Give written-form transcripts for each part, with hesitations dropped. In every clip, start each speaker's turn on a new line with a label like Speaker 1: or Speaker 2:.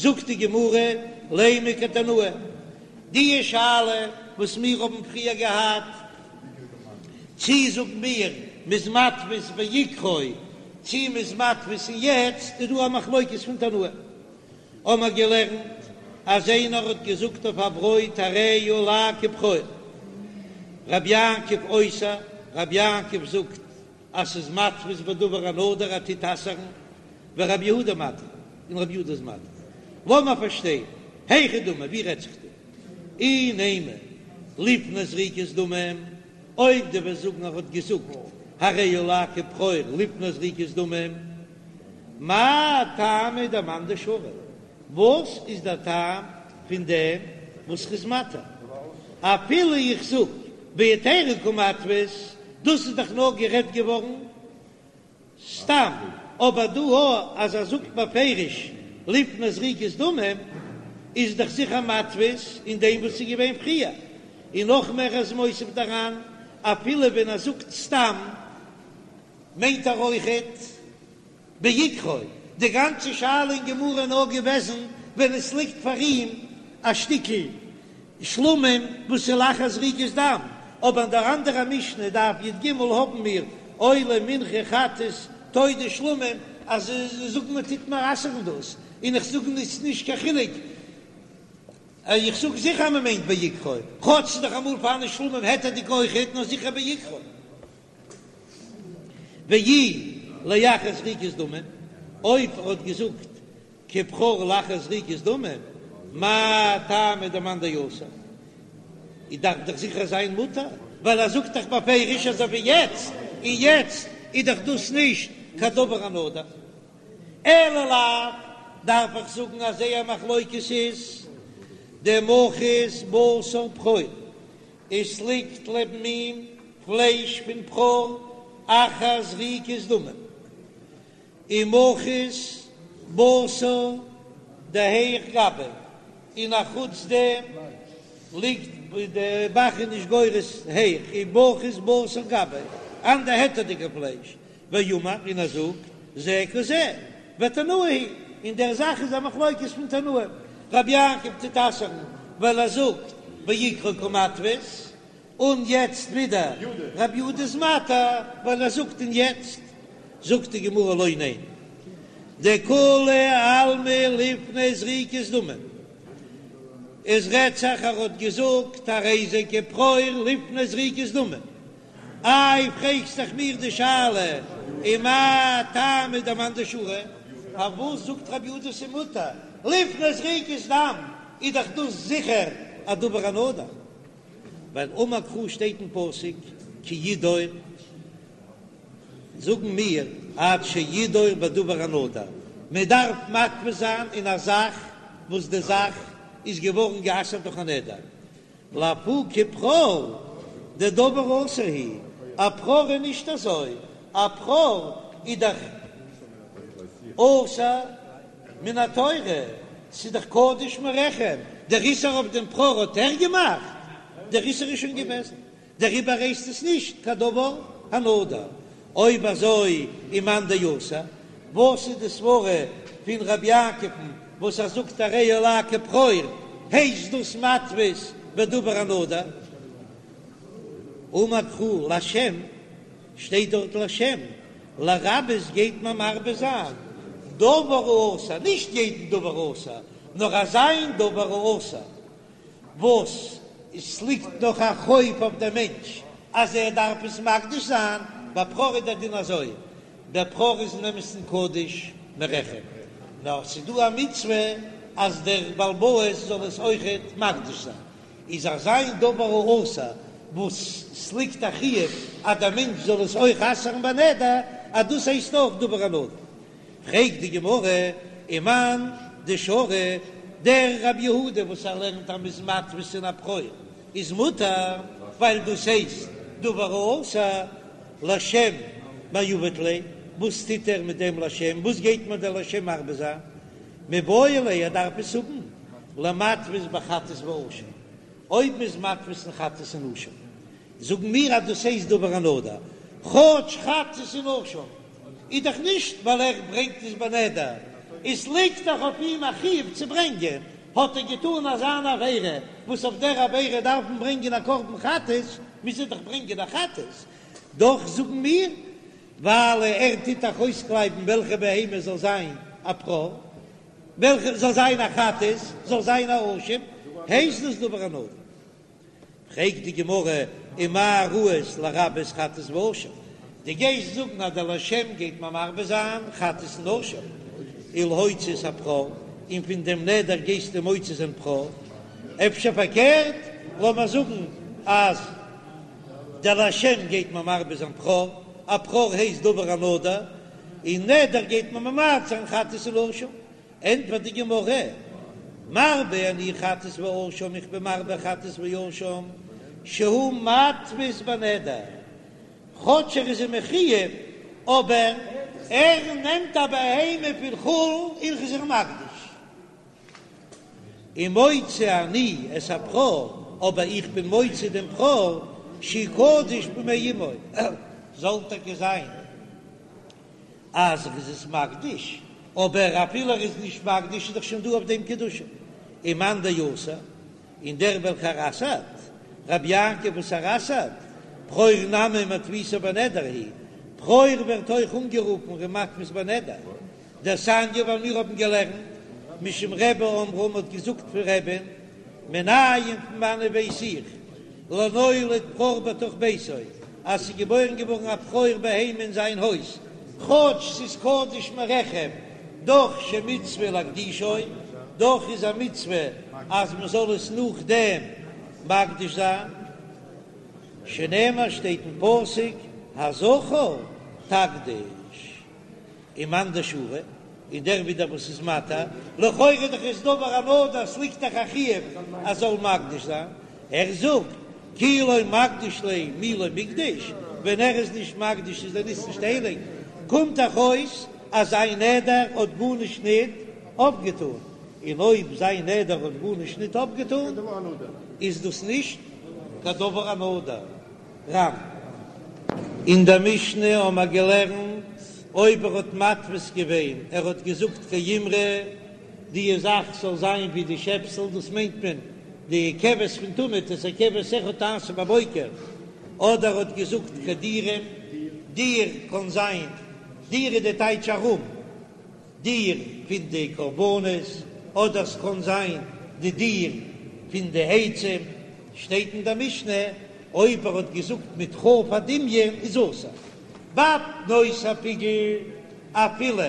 Speaker 1: זאגט די גמרא, לימא כתנאי, די שאלה וואס מיר האבן פריער געהאט, צי זאגן מיר מ'איז מתפיס בעיקרו צי מ'איז מתפיס אין יעצט, איז דא א מחלוקת פון תנאים. האמער געלערנט אז איינער האט געזאגט אויף א ברויט הרי עלי כבכור, רבי יעקב אוסר, רבי יעקב זאגט אז ס'איז מתפיס בדבר הנדור ער טוט אסר'ן, ורבי יהודה מתיר, און רבי יהודה איז מתיר. לאמער פארשטיין, היכי דמי, ווי רעדט זיך דא? אי נימא לפני זריקת דמים, אויב דו וועסט זאגן ער האט געזאגט הרי עלי כבכור לפני זריקת דמים, מאי טעמא דמאן דשרי, וואס איז דער טעם פון דעם וואס ר'איז מתיר? אפילו איך זאג בהיתרא קא מתפיס, דאס איז דאך נאר גערעדט געווארן סתם, אבער דא אז ער זאגט בפירוש לפני זריקת דמים, איז דאך זיכער מתפיס אין דעם וואס איז געווען פריער, און נאך מער איז מוסיף דעראין, אפילו ווען ער זאגט סתם מיינט ער אויכעט בעיקרו, די גאנצע שאלה אין גמרא איז נאר געוועזן ווען עס ליגט פאר אים א שטיקל שלמים וואס איז לאחר זריקת דם, אבער אין דער אנדערע משנה דף י"ג האבן מיר עולה מנחה חטאת תודה שלמים אז זאגן מען טוט מען אסר'ן דאס, און איך זאג עס נישט קיין חילוק, איך זאג זיכער מען מיינט בעיקרו, כאטש ס'איז דאך אמאל פארהאן שלמים היתר'דיג אויכעט, נאר זיכער בעיקרו. ואי לאחר זריקת דמים, אויב ער האט געזאגט כבכור לאחר זריקת דמים, מאי טעמא דמאן דאסר? איז דארף דאך זיכער זיין מותר, ווייל ער זאגט דאך בפירוש אזוי ווי יעצט, און יעצט איז דאך דאס נישט קיין דבר הנדור. אלא לאו, דארף איך זאגן אז זייער מחלוקת איז דמחית בשר בכור, עס ליגט לעבן אים פלייש פון בכור אחר זריקת דמים, ומחית בשר דהיך גביה, און א חוץ דעם ליגט די ב"ח איז נישט גורס היך, ומחית בשר גביה, אנדער היתר'דיגע פלייש, ואמר און ער זאגט זה כזה, ותנאי היא, אין דער זאך איז א מחלוקת פון תנאים, רבי יעקב טוט אסר'ן ווייל ער זאגט בעיקרו קא מתפיס, און יעצט ווידער רבי יהודה איז מתיר ווייל ער זאגט און יעצט זאגט די גמרא לא ניין דכולי עלמא לפני זריקת דמים, עס רעדט זיך ער האט געזאגט הרי זה כבכור לפני זריקת דמים, איי פרעגסט דאך מיר די שאלה ומאי טעמא דמאן דשרי, פארוואס זאגט רבי יהודה ס'מותר לפני זריקת דם, איז דאך דאס זיכער א דבר הנדור, ווייל אמר קרא שטייט אין פסוק כי ידור, זאגן מיר עד שידור בדבר הנדור, מען דארף מתפיס זיין אין א זאך וואס די זאך איז געווארן גע'אסר'ט דורך א נדר, לאפוקי בכור דדבר אסור הוא, א בכור איז נישט אזוי, א בכור איז דאך אסור מן התורה, ס'איז דאך קדוש מרחם, דער איסור אויף דעם בכור האט ער געמאכט? דער איסור איז שוין געוועזן, דעריבער הייסט עס נישט קיין דבר הנדור. אויב אזוי ומאן דאסר, וואס איז די סברה פון רבי יעקב'ן וואס ער זאגט הרי עלי כבכור, הייסט דאס מתפיס בדבר הנדור? אמר קרא לשם, שטייט דארט לשם, לרבות גייט מען מרבה זיין דבר האסור, נישט יעדן דבר האסור, נאר אזא דבר האסור וואס עס ליגט נאך א חוב אויף דעם מענטש אז ער דארף עס מקדיש זיין, ביי בכור איז דער דין אזוי, דער בכור איז אין אמת'ן קדוש מרחם, נאר ס'איז דא א מצוה אז דער בעל הבית זאל עס אויכעט מקדיש זיין, איז אזא דבר האסור וואס ס'ליגט א חיוב אז דער מענטש זאל עס אויך אסר'ן בנדר, אז דאס הייסט אויך דבר הנדור. פרעגט די גמרא, ומאן דשרי, דער רבי יהודה וואס ער לערנט אז מ'איז מתפיס אין א בכור איז מותר, ווייל דאס הייסט דבר האסור, לשם מאי עביד ליה, וואס טוט ער מיט דעם לשם, וואס גייט מיר דער לשם מרבה זיין, מיבעי ליה ער דארף עס האבן למתפיס בחטאת ואשם, אויב מ'איז מתפיס אין חטאת און אשם, זאגן מיר אז דאס הייסט דבר הנדור, כאטש חטאת און אשם איז דאך נישט ווייל ער ברענגט עס בנדר. עס ליגט דאך אויף אים א חיוב צו ברענגען, האט ער געטאן אזא עבירה וואס אויף דער עבירה דארף מען ברענגען א קרבן חטאת, מוז ער דאך ברענגען א חטאת, דאך זאגן מיר, ווייל ער טוט דאך אויסקלייבן וועלכע בהמה זאל זיין א בכור, וועלכע זאל זיין א חטאת, זאל זיין א אשם, הייסט דאס דבר הנדור. פרעגט די גמרא, ומה ראית לרבות חטאת ואשם? דו גייסט זאגן אז דער לשם גייט מען מרבה זיין חטאת און אשם, ולהוציא את הבכור, און פון דעם נדר גייסטו מוציא זיין בכור? אפשר פארקערט, לאמיר זאגן אז דער לשם גייט מען מרבה זיין בכור, א בכור הייסט דבר הנדור, און נדר גייט מען ממעט זיין חטאת און אשם, ענטפערט די גמרא, מרבה אני חטאת ואשם, איך בין מרבה חטאת ואשם, שהוא מתפיס בנדר, כאטש ער איז אים מחויב, אבער ער נעמט א בהמה פון חולין און איז איר מקדיש. ומוציא אני את הבכור, אבער איך בין מוציא דעם בכור, שהוא קדוש במעי אמו, זאל טאקע זיין. אז ער איז עס מקדיש, אבער אפילו ער איז נישט מקדיש איז דאך שוין דא אויף דעם קדושה. ומאן דאסר, און דער וועלכער אסר'ט, רבי יעקב וואס ער אסר'ט, בכור נמי מתפיסו בנדר הוא, בכור ווערט אויך אנגערופן ער איז מתפיס בנדר, דתניא ווייל מיר האבן געלערנט משום רבי אמרו מ'האט געזאגט פון רבי'ן, מנין פון וואנען ווייס איך לנולד בכור בתוך ביתו אז ס'איז געבוירן געווארן א בכור בהמה אין זיין הויז, כאטש ס'איז קדוש מרחם, דאך שמצוה להקדישו, דאך איז א מצוה אז מ'זאל עס נאכדעם מקדיש זיין, שנאמר שטייט אין פסוק הזכר תקדיש. ומאן דשרי, און דער ווידער וואס איז מתיר, לכאורה איז דאך עס דבר הנדור, ס'ליגט דאך א חיוב אז זאל מקדיש זיין, ער זאגט כי לא מקדיש ליה מי לא מקדיש, ווען ער איז נישט מקדיש איז דער ניס נישט הייליג, קומט דאך אויס אז זיין נדר האט גארנישט ניט אויפגעטאן, און אויב זיין נדר האט גארנישט ניט אויפגעטאן איז דאס נישט קיין דבר הנדור. רמ. אין דער משנה האבן מיר געלערנט, אויב ער האט מתפיס געווען, ער האט געזאגט כאימרא, די זאך זאל זיין ווי די שעפסל, דאס מיינט מען די כבש פון תמיד, את הכבש אחד תעשה בבוקר, אדער ער האט געזאגט כדירים, דיר קען זיין, דיר איז די טייטש ארום. דיר פון די קרבנות, אדער ס'קען זיין די דיר פון די עצים, שטייט אין דער משנה, אויב ער האט געזאגט מיט כ"ף הדמיון איז אסור. ביי פנות הפיגול, אפילו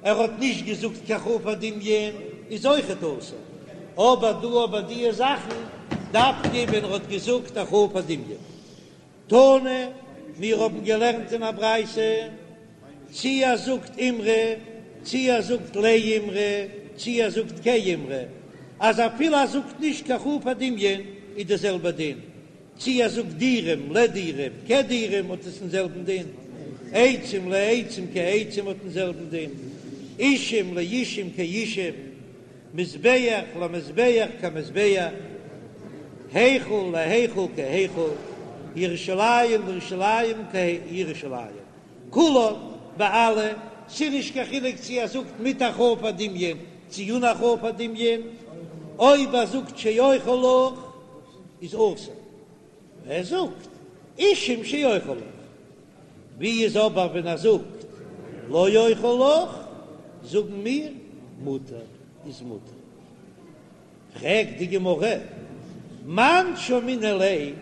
Speaker 1: ער האט נישט געזאגט קיין כ"ף הדמיון איז אויכעט אסור, אבער דא אבער דיע זאכן דווקא ווען ער האט געזאגט א כ"ף הדמיון. תנא, מיר האבן געלערנט אין א ברייתא, צי ער זאגט אימרא, צי ער זאגט לאימרא, צי ער זאגט כאימרא, אז אפילו ער זאגט נישט קיין כ"ף הדמיון איז די זעלבע דין, צי ער זאגט דירים לדירים כדירים האט עס דעם זעלבן דין, עצים לעצים כעצים האט דעם זעלבן דין, אישים לאישים כאישים. מזבח למזבח כמזבח, היכל להיכל כהיכל, ירושלים לירושלים כירושלים, כולן ביי אלע, ס'איז נישט קיין חילוק צו ער זאגט מיט א כ"ף הדמיון צו אן א כ"ף הדמיון, אויב ער זאגט שאוכל לך איז אסור, ער זאגט אישים שאוכל לך. ווי איז אבער ווען ער זאגט לא אוכל לך, זאגן מיר מותר איז מותר. פרעגט די גמרא, מאן שמעינן ליה,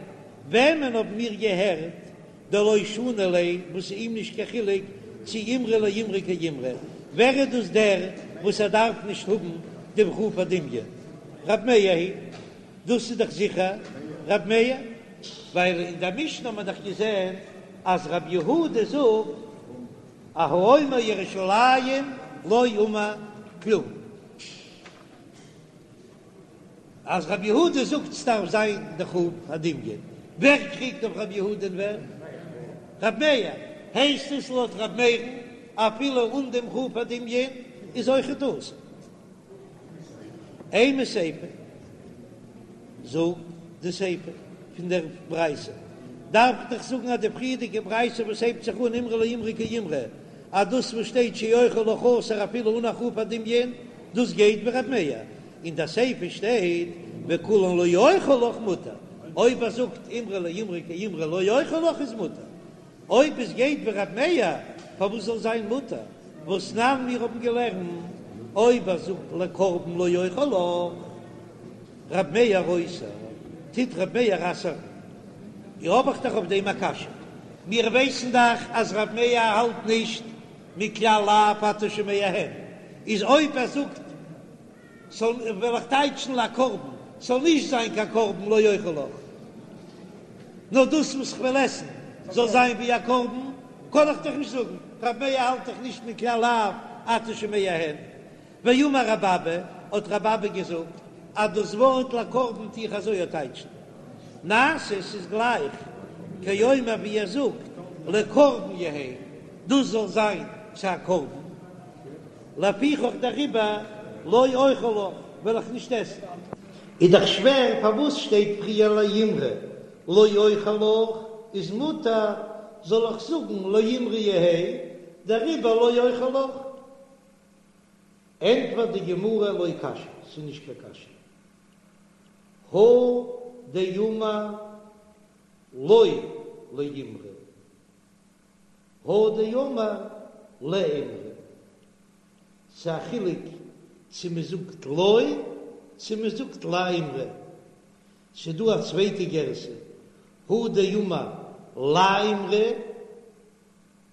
Speaker 1: וועמען האבן מיר געהערט דלא שני ליה, וואס איז אים נישט קיין חילוק צו אימרא לאימרא כאימרא, ווער איז דאס דער וואס ער דארף נישט האבן דעם כ"ף הדמיון? רב מאיר היא דאס איז דאך זיכער רב מאיר. ווייל אין דער משנה האט מען דאך געזען אז רבי יהודה זאגט אז האומר ירושלים לא אמר כלום, אז רבי יהודה זאגט ס'דארף זיין די כ"ף הדמיון, ווער קריגט אויף רבי יהודה און ווער? רבי מאיר, הייסט עס לויט רבי מאיר'ן אפילו אן דעם כ"ף הדמיון איז אויכעט אסור. אימא סיפא, זאג די סיפא פון דער ברייתא, דארף איך דאך זאגן אז די פריערדיגע ברייתא וואס הייבט זיך אן אימרא לאימרא כאימרא. אז דאס וואס שטייט שאוכל לך אסור אפילו אן הכרעה פון דמיון, דאס גייט ווי ר' מאיר, אין די סיפא שטייט וכולן לא אוכל לך מותר, אויב ער זאגט אימרא לאימרא כאימרא לא אוכל לך איז מותר, אויב עס גייט ווי ר' מאיר פארוואס זאל זיין מותר? והתנן מיר האבן געלערנט אויב ער זאגט לקרבן לא אוכל לך ר' מאיר אוסר, טוט ר' מאיר אסר'ן. האב איך דאך אויף דעם א קשיא, מיר ווייסן דאך אז ר' מאיר האלט נישט מכלל לאו אתה שומע הן, איז אויב ער זאגט זאל וועל איך טייטשן לקרבן, ס'זאל נישט זיין קיין קרבן לא אוכל לך, נאר דאס וואס כ'וועל עסן זאל זיין ווי א קרבן, קען איך דאך נישט זאגן, ר' מאיר האלט דאך נישט מכלל לאו אתה שומע הן. ואמר רבי אבא, האט רבי אבא געזאגט אז דאס ווארט לקרבן טו איך אזוי טייטשן, נעשה ס'איז גלייך כאומר ווי ער זאגט לקרבן יהא, דאס זאל זיין צו א קרבן, לפיכך דעריבער לא אוכל לך, וועל איך נישט עסן. איז דאך שווער פארוואס שטייט פריער לאימרא לא אוכל לך איז מותר, זאל איך זאגן לאימרא יהא, דעריבער לא אוכל לך? ענטפערט די גמרא לא קשיא, ס'איז נישט קיין קשיא, הא דאמר לא לאימרא, הא דאמר לאימרא, ס'איז א חילוק צו מ'זאגט לא צו מ'זאגט לאימרא, ס'איז דא א צווייטע גירסא, הא דאמר לאימרא,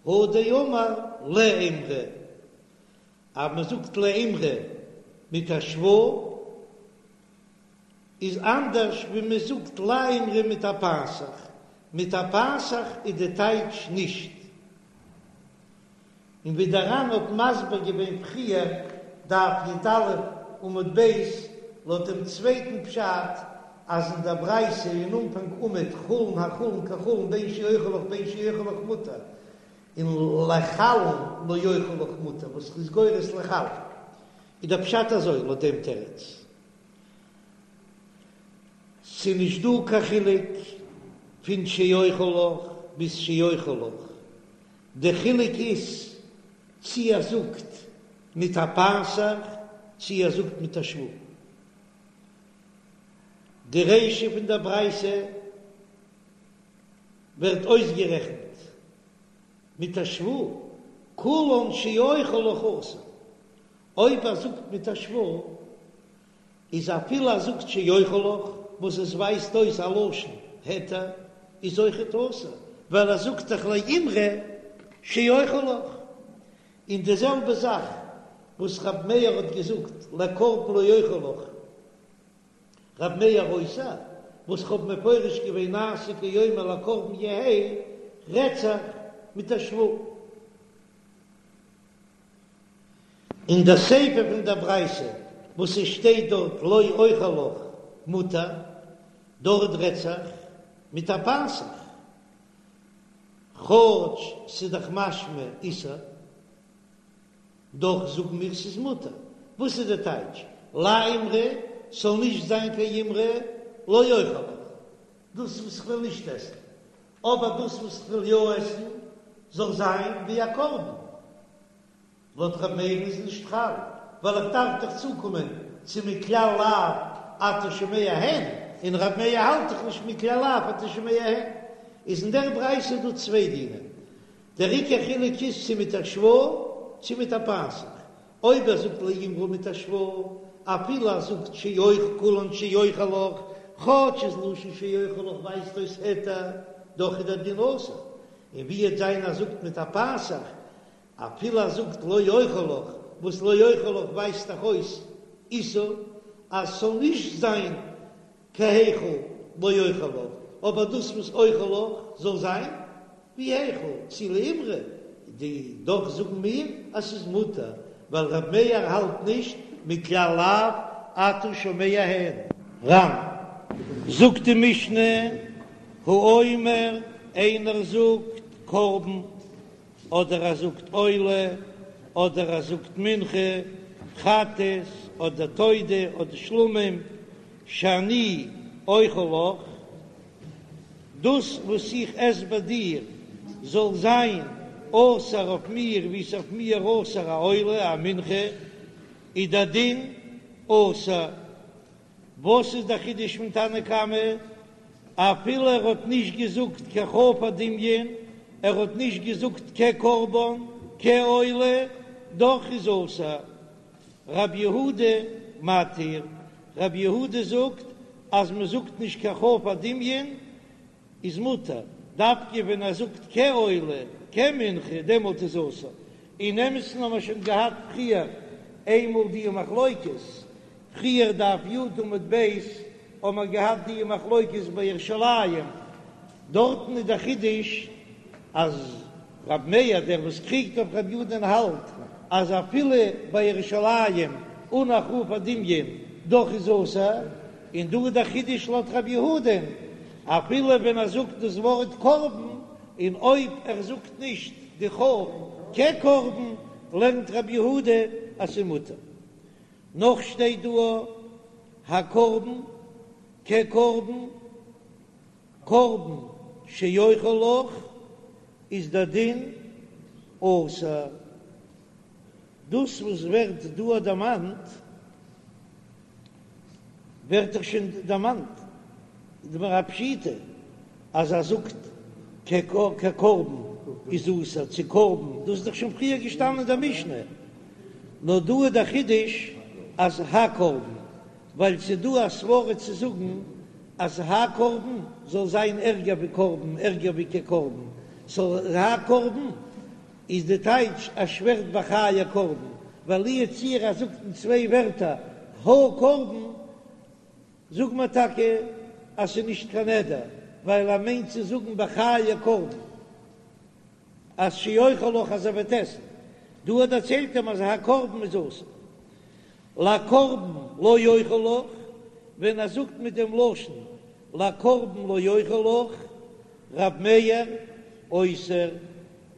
Speaker 1: הא דאמר לאימרא, אז מען זאגט לאימרא מיט א שווא איז אנדערש ווי מען זאגט לאימרא מיט א פתח, מיט א פתח איז די טייטש נישט. און ווי דער ר"ן האט מסביר געווען פריער, דף י"א עמוד ב', לויט דעם צווייטן פשט אז אין דער ברייתא אין אנפאנג עמוד חולין החולין כחולין בין שאוכל לך בין שאוכל לך מותר, און לחלין לא אוכל לך מותר וואס איז גורס לחלין, איז דער פשט אזוי לויט דעם תירוץ, ס'נישט דא קיין חילוק פון שאוכל לך ביז שאוכל לך, די חילוק איז צי ער זאגט מיט א פתח צי ער זאגט מיט א שווא. די רישא פון דער ברייתא ווערט אויסגערעכנט מיט א שווא, כולן שאוכל לך אסור. אויב ער זאגט מיט א שווא, איז אפילו ער זאגט שאוכל לך, וואס עס ווייזט אויס א לשון היתר, איז אויכעט אסור, ווייל ער זאגט דאך לאימרא שאוכל לך. און די זעלבע זאך וואס רב מאיר האט געזאגט לקרבן לא אוכל לך, רב מאיר אוסר, וואס כ'האב מפרש געווען נעשה כאומר לקרבן יהא, רעדט זיך מיט א שווא. אין דער סיפא פון דער ברייתא וואס עס שטייט דארט לא אוכל לך מותר, דארט רעדט זיך מיט א פתח, כאטש ס'איז דאך משמע איסור, דאך זאגן מיר ס'איז מותר. וואס איז די טייטש לאימרא ס'זאל נישט זיין קיין אימרא לא אוכל לך, דאס וואס כ'וויל נישט עסן, אבער דאס וואס כ'וויל יא עסן זאל זיין ווי א קרבן. לויט ר' מאיר'ן איז נישט חל, ווייל איך דארף דאך צוקומען צו מכלל לאו אתה שומע הן, און ר' מאיר האלט דאך נישט מכלל לאו אתה שומע הן. איז אין דער ברייתא דא צוויי דינים, דער עיקר חילוק איז צו מיט א שווא צו מיט א פתח. אויב ער זאגט לאימרא מיט א שווא, אפילו ער זאגט שאוכל כולן שאוכל לך, כאטש איז לשון שאוכל לך ווייזט אויס היתר, דאך איז דער דין אסור. און ווי וועט זיין ער זאגט מיט א פתח, אפילו ער זאגט לא אוכל לך, וואס לא אוכל לך ווייזט דאך אויס איסור, אז ס'זאל נישט זיין כהיכל לא אוכל לך, אבער דאס וואס אוכל לך זאל זיין ווי היכל, צו לאימרא, די דאך זאגן מיר אז ס'איז מותר, ווייל ר' מאיר האלט נישט מכלל לאו אתה שומע הן. ר"ן, זאגט די משנה, האומר, איינער זאגט קרבן אדער ער זאגט עולה, אדער ער זאגט מנחה, חטאת, אדער תודה, אדער שלמים, שאני אוכל לך, דאס וואס איך עס ביי דיר זאל זיין. אסור אויף מיר ווי ס'איז אויף מיר אסור א עולה א מנחה, איז דער דין אסור. וואס איז דער חידוש פון תנא קמא? אפילו ער האט נישט געזאגט קיין כ"ף הדמיון, ער האט נישט געזאגט כקרבן, כעולה, דאך איז אסור. רב יהודה מתיר, רב יהודה זאגט אז מען זאגט נישט קיין כ"ף הדמיון איז מותר, דווקא ווען ער זאגט כעולה, כמנחה, דעמאלט איז אסור. אין אמת'ן האבן מיר שוין געהאט פריער איינמאל די מחלוקת, פריער דף י' עמוד ב' האבן מיר געהאט די מחלוקת ביי ירושלים, דארטן איז דער חידוש אז רב מאיר דער וואס קריגט אויף רב יהודה'ן האלט אז אפילו ביי ירושלים אן א כ"ף הדמיון דאך איז אסור, און דא איז דער חידוש לויט רב יהודה'ן אפילו ווען ער זאגט דאס ווארט קרבן, און אויב ער זאגט נישט די כ"ף כקרבן לערנט רב יהודה אז ס'איז מותר. נאך שטייט דא הקרבן כקרבן, קרבן שאוכל לך איז דער דין אסור. דאס וואס ווערט דא דערמאנט ווערט דאך שוין דערמאנט דבר הפשיטא אז ער זאגט כקרבן איז אסור צו קרבן, דאס איז דאך שוין פריער געשטאנען אין דער משנה, נאר דא איז דער חידוש אז הקרבן, ווייל ס'איז דא א סברא צו זאגן אז הקרבן זאל זיין ערגער ווי קרבן, ערגער ווי כקרבן, סאו הקרבן איז די טייטש ער שווערט בחיי קרבן, ווייל לו יצוייר ער זאגט אין צוויי ווערטער הקרבן, זאג מיר טאקע אז ס'איז נישט קיין נדר, ווייל ער מיינט צו זאגן בחיי קרבן אז שאוכל לך אז ער וועט עסן, דא האט דערציילט אים אז הקרבן איז אסור, לקרבן לא אוכל לך, ווען ער זאגט מיט דעם לשון לקרבן לא אוכל לך, רב מאיר אוסר,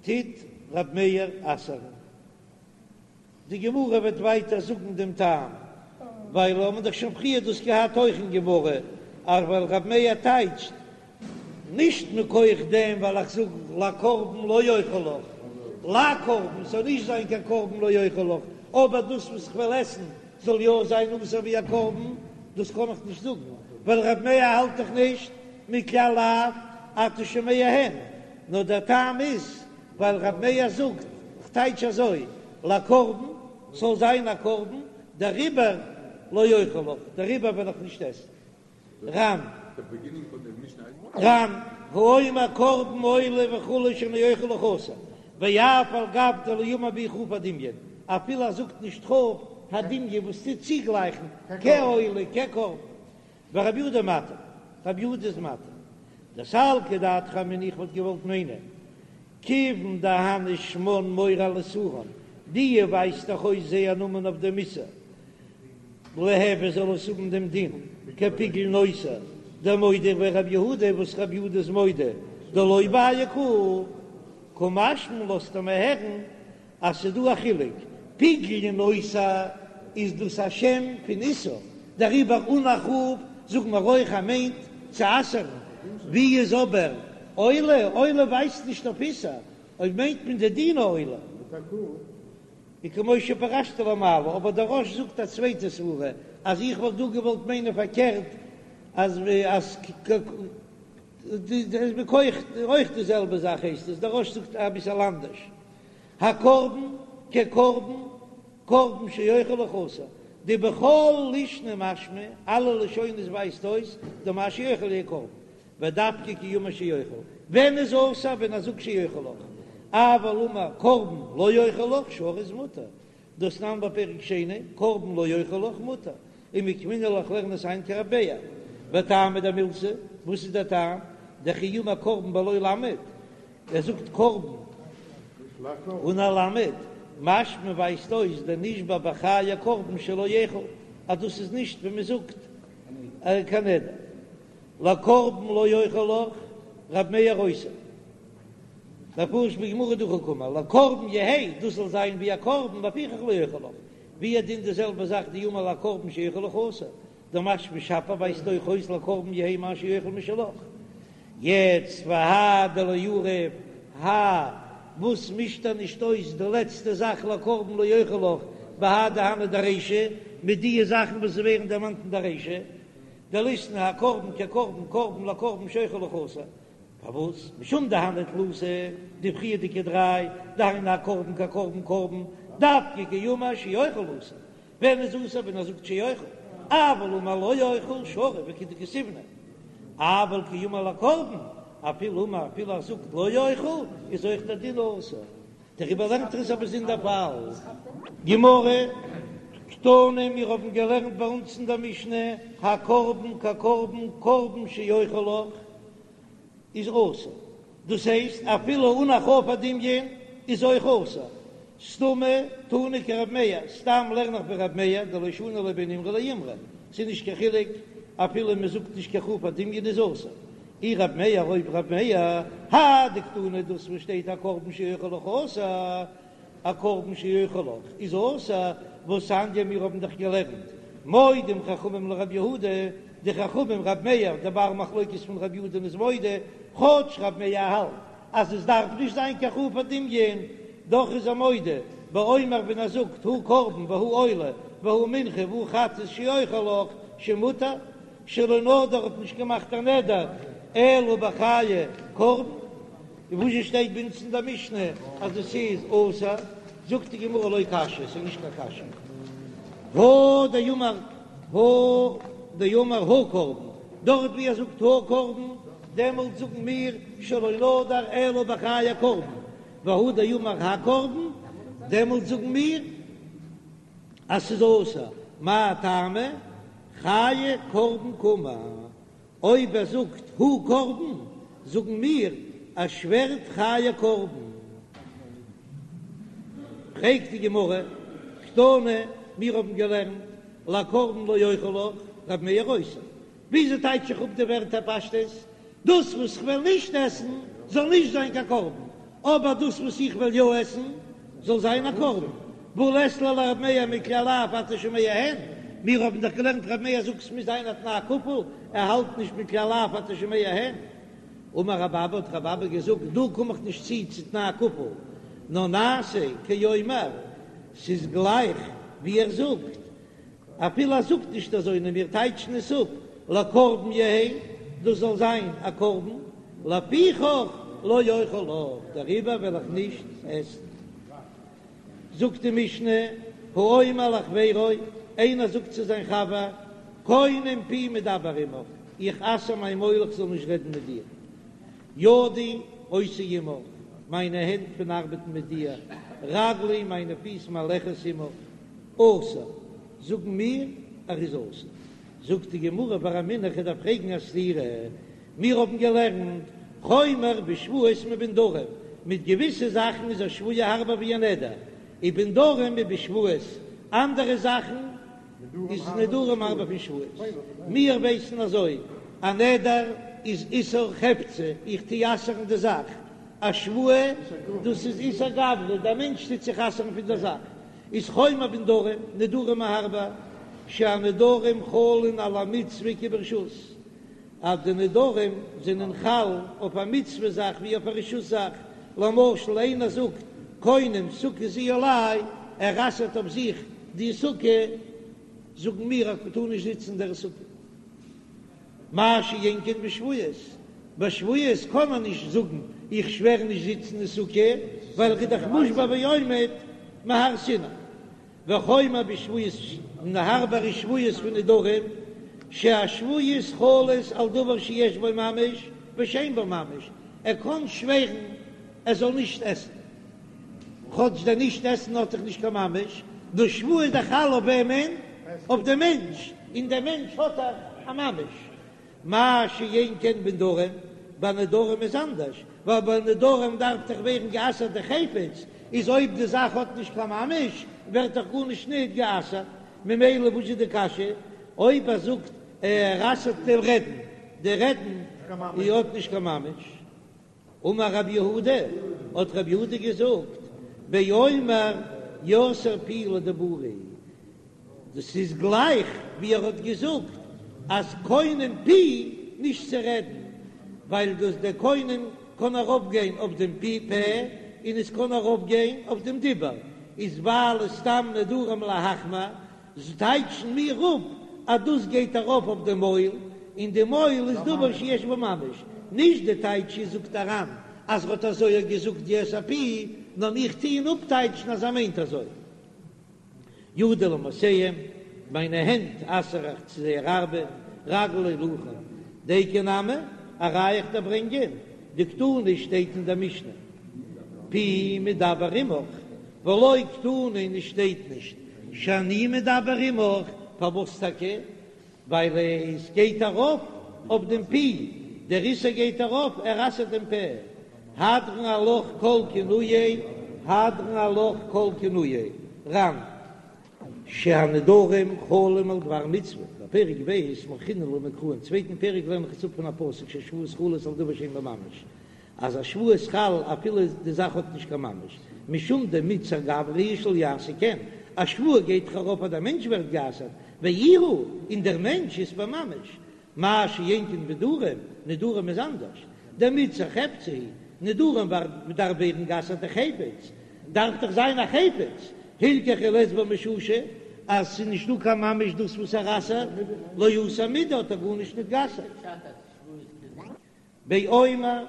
Speaker 1: טוט רב מאיר אסר'ן. די גמרא וועט ווייטער זאגן דעם טעם, ווייל האבן דאך שוין פריער דאס געהאט אויך אין גמרא, אז ווייל רב מאיר טייטשט נישט מכח דעם ווייל איך זאג לקרבן לא אוכל לך, לקרבן ס'זאל נישט זיין קיין קרבן לא אוכל לך, אבער דאס וואס איך וועל עסן זאל יא זיין אסור ווי א קרבן, דאס קען איך נישט זאגן, ווייל רב מאיר האלט דאך נישט מכלל לאו אתה שומע הן, נאר דער טעם איז ווייל רב מאיר זאגט, כ'טייטש אזוי, לקרבן, ס'זאל זיין א קרבן, דעריבער לא אוכל לך, דעריבער וועל איך נישט עסן. ר"ן. ר"ן, האומר קרבן עולה וכו' שאני אוכל לך אסור, ואף על גב דלא אמר בהו כ"ף הדמיון, אפילו ער זאגט נישט כ"ף הדמיון וואס טוט צוגלייכן כעולה כקרבן, ורבי יהודה מתיר, רבי יהודה איז מתיר. דסלקא דעתך אמינא איך וואלט געוואלט מיינען, כיוון דהני שמן מורה על איסורן, די ווייזט דאך אויס זייער נאמען אויף דעם איסור, ליהוי זאל עס האבן דעם דין כפיגול נותר, דמודה ביה רבי יהודה וואס רבי יהודה איז מודה דלא בעי קהל, קא משמע לן לאזט ער מיר הערן אז ס'איז דא א חילוק, פיגול און נותר איז דאס א שם פון איסור, דעריבער אן א כ"ף זאגן מיר אויך אז מיינט צו אסר'ן, ווי איז אבער עולה, עולה ווייזט נישט אויף איסור, אויב מיינט מען די דין העולה. וכמו שפרשתי למעלה, אבער דער רא"ש זאגט א צווייטע סברה, אז איך וואלט דא געוואלט מיינען פארקערט, אז אז מכח אויך די זעלבע זאך הייסט עס, דער רא"ש זאגט אביסעל אנדערש, הקרבן כקרבן, קרבן שאוכל לך אסור, דבכל לישנא משמע, אלע לשונות ווייזט אויס דמה שאוכל יהא קרבן, ודווקא כי אמר שאוכל, ווען איז אסור ווען ער זאגט שאוכל לך, אבל אמר קרבן לא אוכל לך שרי איז מותר, דתנן בפרק שני, קרבן לא אוכל לך מותר, ומוקמינן לה איך לערן עס איין כרבי מאיר, וטעמא דמילתא, וואס איז דער טעם, דכי אמר קרבן בלא למד, ער זאגט קרבן אן א למד, משמע ווייזט אויס דנשבע בחיי קרבן שלא יאכל, אז דאס איז נישט ווי מען זאגט קיין נדר. לקרבן לא אוכל לך, רב מאיר אוסר. מפרש בגמרא דהכי קאמר, לקרבן יהא, דאס זאל זיין ווי א קרבן, לפיכך לא אוכל לך. והוא הדין די זעלבע זאך דאמר לקרבן שאוכל לך אסור. דמשמע שפיר ווייזט אויך אויס לקרבן יהא מה שאוכל משלך. יעצט והאי דלא עריף האי. וואס מישט ער נישט אויס די לעצטע זאך לקרבן לא אוכל לך בהאי דהני דרישא מיט דיע זאכן וואס ווערן דערמאנט אין די רישא דליתני הקרבן כקרבן קרבן לקרבן שאוכל לך אסור פארוואס משום דהני תלתא די פריערדיגע דריי דהיינו הקרבן כקרבן קרבן דווקא כי אמר שאוכל אסור ווען איז אסור ווען ער זאגט שאוכל, אבל אמר לא אוכל שרי וכדכתיבנא, אבל כי אמר לקרבן, אפילו אמר אפילו ער זאגט לא אוכל איז אויך דער דין אסור, דעריבער לערנט ער עס א באזונדער פאל. גמרא, קתני, מיר האבן געלערנט ביי אונז אין דער משנה, הקרבן כקרבן קרבן שאוכל לך, איז אסור, דאס הייסט אפילו אן א כף הדמיון איז אויך אסור, סתמא תנא כרב מאיר, סתם לערן איך ווי רב מאיר, דלא שני לא בין אימרא לאימרא, ס'איז נישט קיין חילוק אפילו מען זאגט נישט קיין כף הדמיון איז אסור, אי רב מאיר אויב רב מאיר, האי דקתני דאס וואס שטייט א קרבן שאוכל לך אסור, א קרבן שאוכל לך איז אסור, והתניא מיר האבן דאך געלערנט מודים חכמים לרב יהודה, די חכמים רב מאיר דער בר מחלוקת פון רב יהודה'ן איז מודה, כאטש רב מאיר האלט אז עס דארף נישט זיין קיין כף הדמיון, דאך איז ער מודה באומר ווען ער זאגט הא קרבן והא עולה והא מנחה והא חטאת שאוכל לך שמותר, שלא נדר האט נישט געמאכט א נדר אלא בחיי קרבן. און וואס שטייט ביי אונז אין דער משנה אז עס איז אסור, זאגט די גמרא לא קשיא, עס איז נישט קיין קשיא, הא דאמר הא דאמר הא קרבן, דארט ווי ער זאגט הא קרבן, דעמאלט זאגן מיר שלא נדר אלא בחיי קרבן, והא דאמר הקרבן, דעמאלט זאגן מיר אז ס'איז אסור, מאי טעמא? חיי קרבן קאמר. אויב ער זאגט הא קרבן, זאגן מיר ער שווערט חיי קרבן. פרעגט די גמרא, קתני, מיר האבן געלערנט לקרבן לא אוכל לך, רב מאיר אוסר. וויאזוי טייטש איך אפ די ווערטער פשטות? דאס וואס כ'וועל נישט עסן זאל נישט זיין קיין קרבן, אבער דאס וואס איך וועל יא עסן זאל זיין א קרבן, והא לית ליה לרב מאיר מכלל לאו אתה שומע הן, מיר האבן דאך געלערנט רב מאיר זאגט ס'מוז זיין א תנאי כפול, ער האלט נישט מכלל לאו אתה שומע הן. אמר רב אבא האט רב אבא געזאגט דא קום איך נישט צו צו תנאי כפול, נאר נעשה כאומר, ס'איז גלייך ווי ער זאגט, אפילו ער זאגט נישט אזוי נאר מיר טייטשן עס אפ לקרבן יהא, דאס זאל זיין א קרבן, לפיכך לא אוכל לך, דעריבער וועל איך נישט עסן. זאגט די משנה, האומר לחבירו, איינער זאגט צו זיין חבר, קונם פי מדבר עמך, איך אסר מיין מויל איך זאל נישט רעדן מיט דיר. ידי עושה עמך, מיינע הענט פון ארבעטן מיט דיר, רגלי, מיינע פיס מהלכת עמך, אסור, זאגן מיר, ער איז אסור. זאגט די גמרא ורמינהו, איך דארף פרעגן א סתירה, מיר האבן געלערנט חומר בשבועות מבנדרים, מיט געוויסע זאכן איז א שבועה הארבער ווי א נדר, ובנדרים מבשבועות, אנדערע זאכן איז נדרים הארבער פון שבועות. מיר ווייסן אזוי, א נדר איז איסור חפצא, איך טו אסר'ן די זאך, א שבועה דאס איז איסור גברא, דער מענטש טוט זיך אסר'ן פון דער זאך, איז חומר בנדרים, נדרים הארבער, שהנדרים חלין על המצוה כברשות, אז די נדרים זענען חל אויף א מצוה זאך ווי אויף א רשות זאך, למשל איינער זאגט קונם סוכה זו עלי, ער אסר'ט אויף זיך די סוכה, זאגן מיר אז מ'טאר נישט זיצן אין דער סוכה. מה שאין כן בשבועות, ביי שבועות קען מען נישט זאגן איך שווער נישט זיצן אין סוכה, ווייל ער איז דאך מושבע ועומד מהר סיני. וחומר בשבועות און הארבער איז שבועות פון נדרים, שהשבועות חלות על דבר שיש בו ממש ושאין בו ממש, ער קען שווערן ער זאל נישט עסן, כאטש דער נישט עסן האט דאך נישט קיין ממש, די שבועה איז דאך חל אויף וועמען? אויף דעם מענטש, און דער מענטש האט דאך א ממש. מה שאין כן בנדרים, ביי נדרים איז אנדערש, ווייל ביי נדרים דארף דאך ווערן גע'אסר'ט די חפץ, איז אויב די זאך האט נישט קיין ממש, ווערט דאך גארנישט ניט גע'אסר'ט, ממילא וואס איז די קשיא? אויב ער זאגט ער אסר'ט דעם רעדן, די רעדן האט נישט קיין ממש. אמר רב יהודה, האט רב יהודה געזאגט, באומר יאסר פי לדיבורי, דאס איז גלייך ווי ער האט געזאגט אז קונם פי נישט צו רעדן, ווייל דאס דער קונם קען ארויף גיין אויף דעם פי פה. און עס קען ארויפגיין אויף דעם דיבור, איז ווייל סתם נדרים להחמיר, טייטשן מיר אפ אז דאס גייט ארויף אויף די מויל, און די מויל איז דבר שיש בו ממש, נישט די טייטש איז זאגט דער ר"ן אז ר'האט אזוי געזאגט את הפי, נאר מיר טוען אפטייטשן אז ער מיינט אזוי. ידי למעשיהם, מיינע הענט אסר איך צו זייער ארבעט, רגלי להילוכן, דיקא נמי, א ראיה איך דיר ברענגען, דקתני שטייט אין דער משנה, פי מדבר עמך, ולא קתני און עס שטייט נישט שאני מדבר עמך, פארוואס טאקע? ווייל עס גייט ארויף אויף דעם פי, דער איסור גייט ארויף, ער אסר'ט דעם פה, הדרן עלך כל כינויי, הדרן עלך כל כינויי, ר"ן. שהנדרים חלים על דבר מצוה, בפרק ב' מוכחינן לה מקרא, אין צווייטן פרק לערן איך עס אפ פון א פסוק שהשבועות חלות על דבר שאין בו ממש, אז א שבועה איז חל אפילו די זאך האט נישט קיין ממש, משום דמיתסר גברא הוא שלא יעשה כן, א שבועה גייט דאך ארויף אז דער מענטש ווערט גע'אסר'ט, ואיהו, און דער מענטש אית ביה ממש, מה שאין כן בנדרים, נדרים איז אנדערש, דמיתסר חפצא הוא, נדרים דארף ווערן גע'אסר'ט די חפץ, דארף דאך זיין א חפץ, הילכך אי לית ביה מששא, אז ס'איז נישטא קיין ממש דאס וואס ער אסר'ט, לא אסר מידי האט ער גארנישט נישט גע'אסר'ט. באומר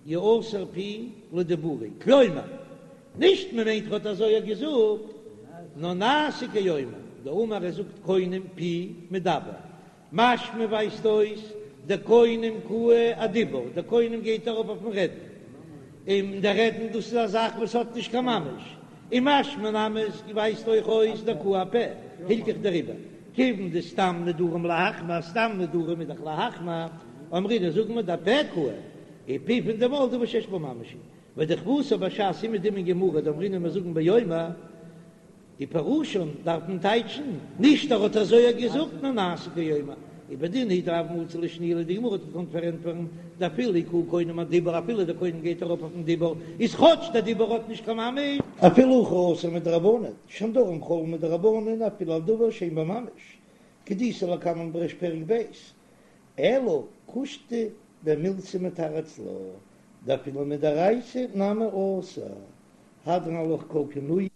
Speaker 1: יאסר פי לדיבורי, כלומר, נישט מען מיינט ר'האט אזוי געזאגט, נאר נעשה כאומר, דאמר ער זאגט קונם פי מדבר, משמע ווייזט אויס דקונם קאי אדיבור, דער קונם גייט ארויף אויפן רעדן, און דער רעדן דאס איז א זאך וואס האט נישט קיין ממש, און משמע נמי עס ווייזט אויך אויס דקאי אפה, הילכך דעריבער כיוון דסתם נדרים להחמיר, סתם נדרים איז דאך להחמיר, אמרינן זאגן מיר דאפה קאי, ופי פון די מויל דבר שיש בו ממש הוא, ודכוותה בש"ס אומעדום אין גמרא דאמרינן מיר זאגן באומר, ופירושן דארף מען טייטשן, נישט ער האט אזוי געזאגט נאר נעשה כאומר, ובדין הוא דהוה מצי לאשנויי די גמרא האט געקאנט פארענטפערן דאפילו קאי קונם אדיבור אפילו דער קונם גייט ארויף אויפן דיבור איז כאטש דער דיבור האט נישט קיין ממש.
Speaker 2: אפילו הכי אסור מדרבנן, שהנדרים חלין מדרבנן אפילו על דבר שאין בו ממש, כדאיתא לקמן בריש פרק ב', אלא קושטא דמילתא מתרץ לה, דאפילו מדאורייתא נמי אסור, הדרן עלך כל כינויי.